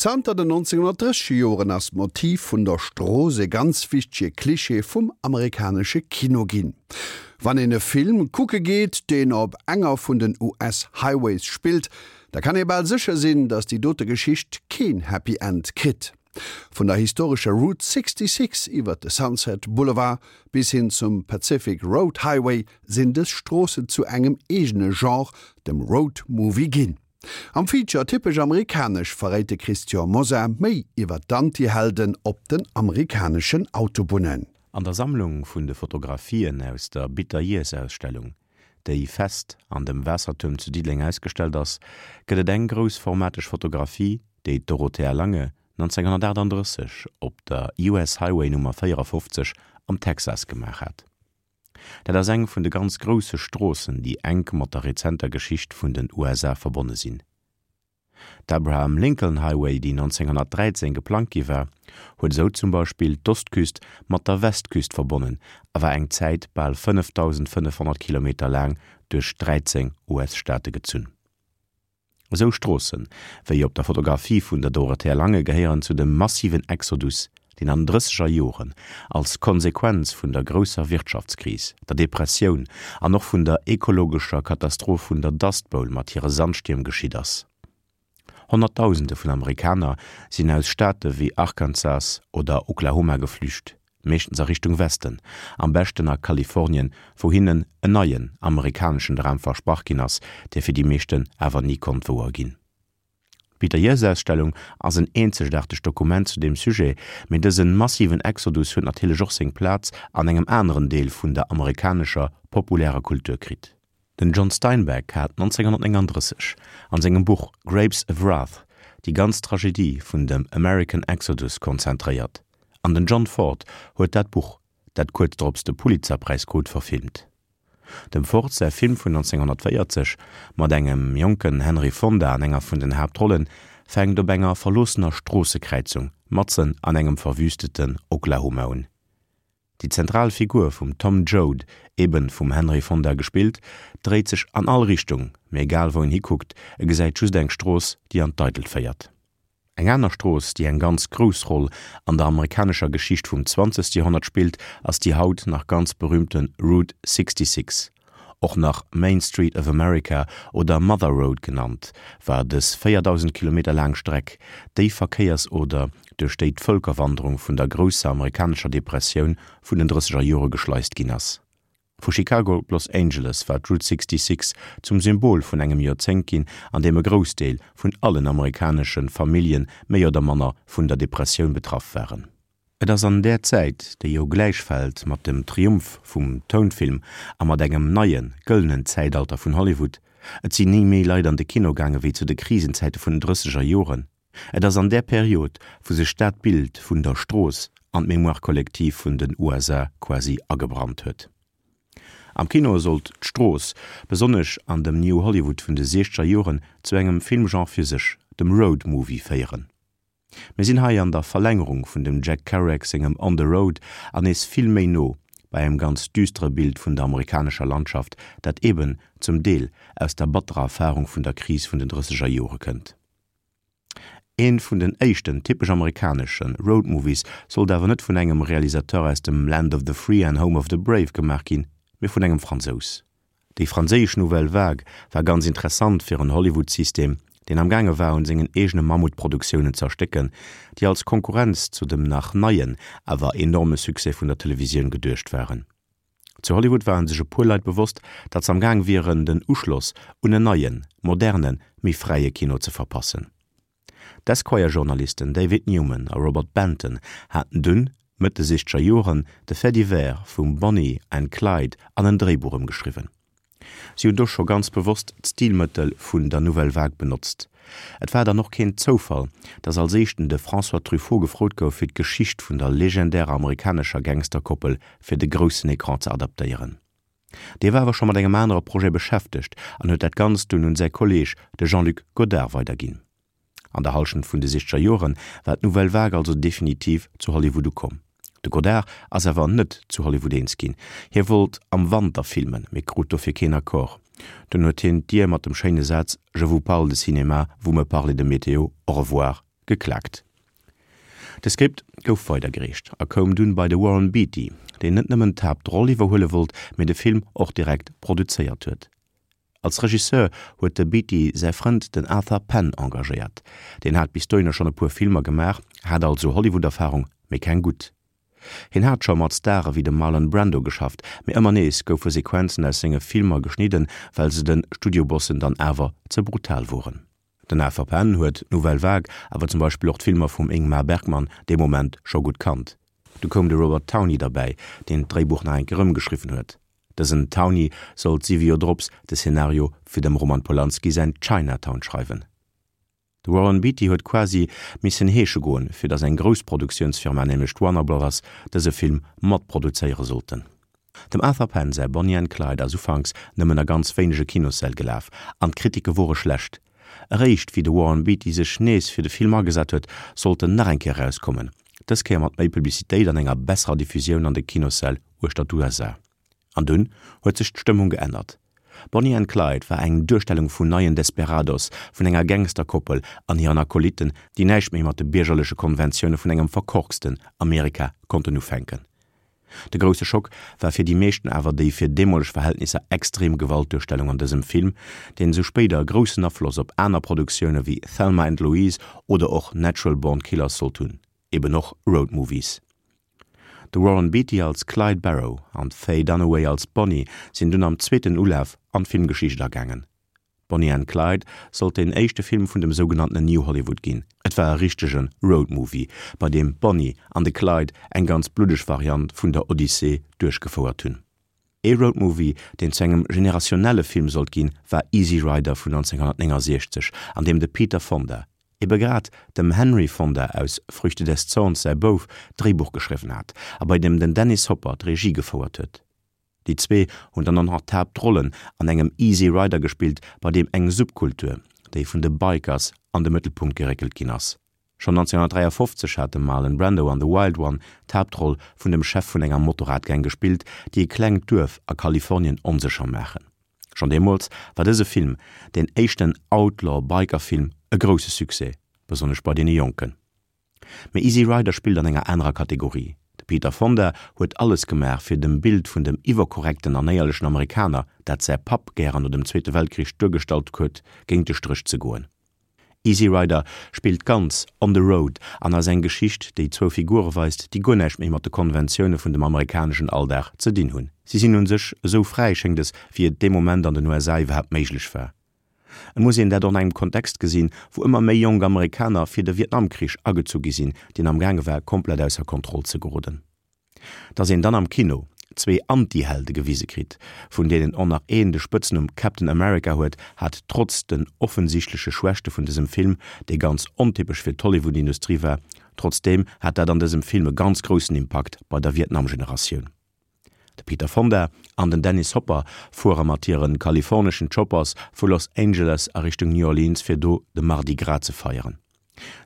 Zanter den 1930 Joren ass d'Motiv vun der Strooss e ganz wichtege Klischee vum amerikanesche Kino ginn. Wann een e Film kucke geet, deen op enger vun den US-Highways spillt, da kann ee bal sécher sinn, datt déi dote Geschicht keen Happy End kritt. Vun der historescher Route 66 iwwer de Sunset Boulevard bis hin zum Pacific Road Highway sinn dës Stroossen zu engem eegene Genre, dem Road Movie ginn. Am Feature Typesch amerikanesch verréit de Christian Mosar méi iwwer d'Antihelden op den amerikaneschen Autobunnen. An der Sammlung vun de Fotografien aus der Bitter Years Ausstellung, déi fest an dem Waassertuerm zu Diddeleng ausgestellt ass, gëtt et eng groussformateg Fotografie, déi d'Dorothea Lange 1938 op der US Highway Nummer 54 am Texas gemaach hat. Dat ass eng vun de ganz grousse Stroossen, déi enk mat der rezenter Geschicht vun den USA verbonne sinn. D'Abraham Lincoln Highway, déi 1913 geplangt gi war, huet esou zum Beispill d'Ostküst mat der Westküst verbonnen a war eng Zäit bal 5.500 Kilometer laang duerch 13 US-Staate gezunn. Esou Stroossen, wéi op der Fotografie vun der Dorothea Lange gehéieren zu dem massiven Exodus, deen an den drësseger Joren als Konsequenz vun der grousser Wirtschaftskris, der Depressioun an och vun der ekologescher Katastroph vun der Dust Bowl mat hire Sandstierm geschitt ass. Honnertdausende vun Amerikaner sinn aus Staate wéi Arkansas oder Oklahoma geflücht. meeschtens a Richtung Westen, am beschten a Kalifornien, wou hinnen en neien amerikaneschen Dram versprach ginn ass, dee fir déi meeschten awer ni konnt wouer ginn. D'Peter-Years-Ausstellung ass en eenzegaartegt Dokument zu deem Sujet, mee dëse massiven Exodus huet natierlech och seng Plaz an engem aneren Deel vun der amerikanescher populärer Kultur kritt. Den John Steinbeck hat 1939 an sengem Buch Grapes of Wrath déi ganz Tragedie vun dem American Exodus konzentréiert, an den John Ford huet dat Buch, dat kuerz drops de Pulitzerpräis krut, verfilmt. Dem Ford säi Film vun 1940, mat engem jonken Henry Fonda an enger vun den Haaptrollen, fänkt op enger verloossener Stroossekräizung matzen an engem verwüsteten Oklahoma un. Déi zentral Figur vum Tom Joad, eben vum Henry Fonda gespillt, dréit sech an all Richtung, mee egal wou en hikuckt, e gesäit just eng Strooss, déi an d'Eidelt féiert. Eng aner Strooss, déi eng ganz grouss Roll an der amerikanescher Geschicht vum zwanzegste Joerhonnert spillt, ass déi haut nach ganz berühmte Route 66. Och nach Main Street of America oder Mother Road genannt, war dës 4.000 Kilometer laang Streck déi Verkéiersoder, duerch déi d'Vëlkerwanderung vun der grousser amerikanescher Depressioun vun den drësseger Jore geschleist ginn ass. Vu Chicago op Los Angeles war d'Route 66 zum Symbol vun engem Joerzéngt ginn, an deem e Groussdeel vun allen amerikanesche Famillje méi oder manner vun der Depressioun betraff waren. Et ass an där Zäit, déi jo gläichfält mat dem Triumph vum Tounfilm a mat engem neie gëllenen Zäitalter vun Hollywood, et sinn ni méi Leit an de Kino gaange wéi zu de Krisenzäite vun den drësseger Joren, et ass an där Period, wou sech dat Bild vun der Strooss an d'Mémoire collective vun den USA quasi agebrannt huet. Am Kino sollt d'Strooss, besonnesch an dem New Hollywood vun de siechzeger Joren, zu engem Filmgenre fir sech, dem Road Movie, féieren. Mir sinn hei an der Verlängerung vun dem Jack Kerouac sengem On the Road an nees vill méi no bei engem ganz düstere Bild vun der amerikanescher Landschaft, dat eben zum Deel aus der batterer Erfarung vun der Kris vun den drësseger Jore kënnt. Ee vun den éischten typesch amerikanesche Road Movies sollt awer net vun engem Realisateur aus dem Land of the Free and Home of the Brave gemaach ginn, mee vun engem Fransous. Déi franséisch Nouvelle Vague war ganz interessant fir en Hollywood-System, deen am gaange war un sengen eegene Mammutproduktiounen z'erstécken, déi als Konkurrenz zu dem nach neien, awer enorme Succès vun der Televisioun geduecht waren. Zu Hollywood ware sech e puer Leit bewosst, datt s'am Gaang wieren, den Uschloss un en neien, modernen, méi fräie Kino ze verpassen. D'Esquire-Journalisten David Newman a Robert Benton haten dunn, Mëtt de sichzeger Joren, de Fait divers vum Bonnie and Clyde an en Dréibuch ëmgeschriwwen. Si hunn do scho ganz bewosst d'Stilmëttel vun der Nouvelle Vague benotzt. Et war dann och keen Zoufall, datt als éischten de François Truffaut gefrot gouf, fir d'Geschicht vun der legendärer amerikanescher Gangsterkoppel fir de groussen Ecran ze adaptéieren. Dee war awer scho mat engem anere Projet beschäftegt an huet dat Ganzt dunn un säi Kolleeg, de Jean-Luc Godard, weiderginn. An der Hallschent vun de sichzeger Jore war d'Nouvelle Vague also definitiv zu Hollywood ukomm. De Godard ass awer net zu Hollywood eens ginn. Hie wollt am Wanter filmen, mee krut dofir keen Accord. Dunn huet hien d'Dier mat dem schéine Saz Je vous parle de cinéma, vous me parlez de météo, au revoir. Geklaakt. De Skript gouf weidergereecht a koum dunn bei de Warren Beatty, deen net nëmmen d'Haaptroll iwwerhuele wollt, mee de Film och direkt produzéiert huet. Als Regisseur huet de Beatty säi Frënd den Arthur Penn engagéiert. Deen hat bis dohinner schonn e puer Filmer gemaach, hat also Hollywood-Erfarung, mee keng gutt. Hien hat scho mat Stare wéi dem Marlon Brando geschafft, mee ëmmer nees goufe Sequenzen aus senge Filmer geschnidden, well se de Studiobossen dann awer ze brutal woren. Den Arthur Penn huet d'Nouvelle Vague, awer zum Beispill och d'Filmer vum Ingmar Bergman dee Moment scho gutt kannt. Du koum de Robert Towne derbäi, deen d'Dréibuch nach eng Kéier ëmgeschriwwen huet. Dësen Towne sollt siwe Joer drops de Szenario fir dem Roman Polanski säin Chinatown schreiwen. De Warren Beatty huet quasi missen heesche goen, fir datt eng grouss Produktiounsfirma, nämlech d'Warner Brothers, dëse Film matproduzéiere sollten. Dem Arthur Penn säi Bonnie and Clyde ass ufanks nëmmen a ganz wéinege Kinossäll gelaf an d'Kritike wore schlecht. Eréischt wéi de Warren Beatty sech nees fir de Film agesat huet, sollt en nach eng Kéier erauskommen, dës Kéier mat méi Publicitéit an enger besserer Diffusioun an de Kinossäll uechter d'USA. An dunn huet sech d'Stëmmung geännert. Bonnie and Clyde war eng Duerstellung vun neien Desperados, vun enger Gangsterkoppel an hiren Akolytten, déi näischt méi mat de biergerleche Konventioune vun engem verkorksten Amerika konnten ufänken. De grousse Schock war fir déi meeschten awer déi fir deemoleg Verhältnisser extrem Gewaltduerstellung an dësem Film, deen esou spéider groussen Afloss op aner Produktioune wéi Thelma and Louise oder och Natural Born Killers sollt hunn, eben och Road Movies. De Warren Beatty als Clyde Barrow an d'Faye Dunaway als Bonnie sinn dunn am zweeten Ulaf an d'Filmgeschicht agaangen. Bonnie and Clyde sollt deen éischte Film vun dem sougenanntenen New Hollywood ginn. Et war e richtege Road Movie, bei deem d'Bonnie an de Clyde eng ganz bluddeg Variant vun der Odyssee duerchgefouert hunn. Ee Road Movie, deen zu engem generationelle Film sollt ginn, war Easy Rider vun 1969, an deem de Peter Fonda, ebe grad dem Henry Fonda aus Früchte des Zorns säi Bouf, d'Dréibuch geschriwwen hat a bei deem den Dennis Hopper d'Regie gefouert huet. Déi zwee hunn dann och nach d'Haaptrollen an engem Easy Rider gespillt, bei deem eng Subkultur, déi vun de Bikers, an de Mëttelpunkt geréckelt ginn ass. Schonn 1953 hat de Marlon Brando an The Wild One d'Haaptroll vun dem Chef vun enger Motorradgang gespillt, déi e klengt Duerf a Kalifornien onsécher maachen. Schonn deemools war dëse Film, deen éischten Outlaw-Biker-Film, e grousse Succès, besonnesch bei deene Jonken. Mee Easy Rider spillt an enger anerer Kategorie. De Peter Fonda huet alles gemaach fir dem Bild vun dem iwwerkorrekten an éierlechen Amerikaner, dat säi Papp gären no dem Zweete Weltkrich duergestallt huet, géint de Stréch ze goen. Easy Rider spillt ganz on the road an ass eng Geschicht, déi zwou Figure weist, déi guer näischt méi mat de Konventioune vun dem amerikaneschen Alldag ze dinn hunn. Si sinn un sech esou fräi, schéngt es, wéi et dee Moment an den USA iwwerhaapt méiglech war. Et muss een dat och an engem Kontext gesinn, wou ëmmer méi jonk Amerikaner fir de Vietnamkrich agezu gi sinn, deen am gaange war komplett ausser Kontroll ze geroden. Datt een dann am Kino zwee Anti-Helde gewise kritt, vun deenen och nach een de Spëtznumm Captain America huet, hat trotz den offensichtleche Schwächte vun dësem Film, dee ganz ontypesch fir d'Hollywood-Industrie war, trotzdeem hat dat an dësem Film e ganz groussen Impakt bei der Vietnam-Generatioun. De Peter Fonda an den Dennis Hopper fuere mat hire kaliforneschen Choppers vu Los Angeles a Richtung New Orleans fir do de Mardi Gras ze feieren.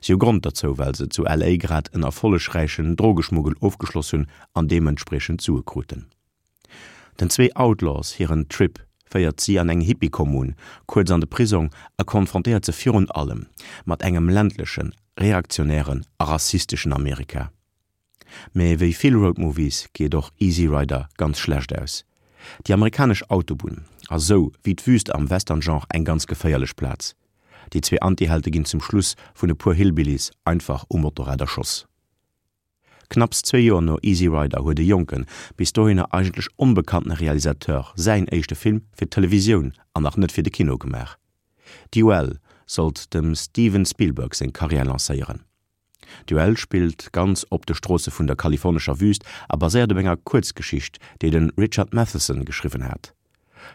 Si hu Grond derzou, well se zu LA grad en erfollegräichen Drogeschmuggel ofgeschloss hunn an deementspriechend Sue kruten. Den zwee Outlaws hiren Trip féiert si an eng Hippie-Kommun, kuerz an de Prisong a konfrontéiert se virun allem mat engem ländlechen, reaktionären a rassisteschen Amerika. Mee wéi vill Road Movies geet och Easy Rider ganz schlecht aus. Déi amerikanesch Autobunn ass sou wéi d'Wüst am Western-Genre eng ganz geféierlech Plaz. Déi zwee Anti-Helte ginn zum Schluss vun e puer Hillbillies einfach um Motorrad erschoss. Knapps zwee Joer no Easy Rider huet e jonken, bis dohinner eigentlech onbekanntene Realisateur säin éischte Film fir d'Televisioun an nach net fir de Kino gemaach. Duel sollt dem Steven Spielberg seng Karriär lancéieren. Duell spillt ganz op de Stroosse vun der kalifornescher Wüüst a baséiert op enger Kuerzgeschicht, déi de Richard Matheson geschriwwen hat.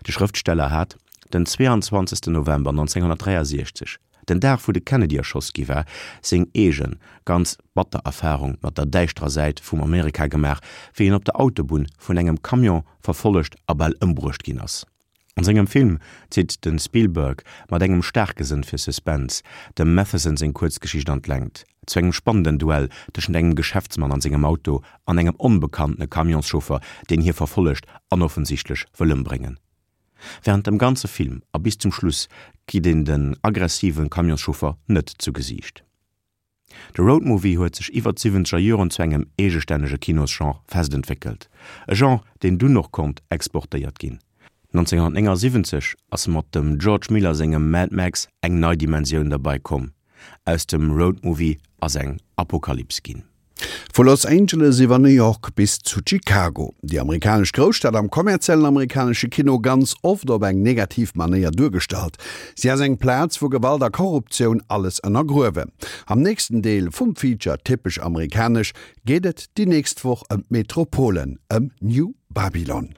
De Schrëftsteller hat den 22 November 1963, den Dag wou de Kennedy erschoss gi war, seng eegen, ganz batter Erfarung mat der däischterer Säit vum Amerika gemaach, wéi en op der Autobunn vun engem Camion verfollegt a bal ëmbruecht ginn ass. An sengem Film zitt de Spielberg mat engem staarke Sënn fir Suspense dem Matheson seng Kuerzgeschicht an d'Längt, zu engem spannenden Duell tëschent engem Geschäftsmann an sengem Auto an engem onbekanntene Camionschauffer, deen hie verfollegt an offensichtlech wëll ëmbréngen. Wärend dem ganze Film a bis zum Schluss kritt een den aggressive Camionschauffer net zu Gesiicht. De Roadmovie huet sech iwwer d'siwwenzeger Joren zu engem eegestännege Kinosgenre fest entwéckelt, e Genre, deen dunn och konnt exportéiert ginn. 1979 ass mat dem George Miller sengem Mad Max eng nei Dimensioun derbei komm, aus dem Roadmovie ass eng Apokalyps ginn. Vu Los Angeles iwwer New York bis zu Chicago, déi amerikanesch Grousstad am kommerziellen amerikanesche Kino ganz oft op eng negativ Manéier duergestallt. Si ass eng Plaz, wou Gewalt a Korruptioun alles ënnergruewen. Am nächsten Deel vum Feature Typesch amerikanesch geet et déi nächst Woch ëm d'Metropole, ëm New Babylon.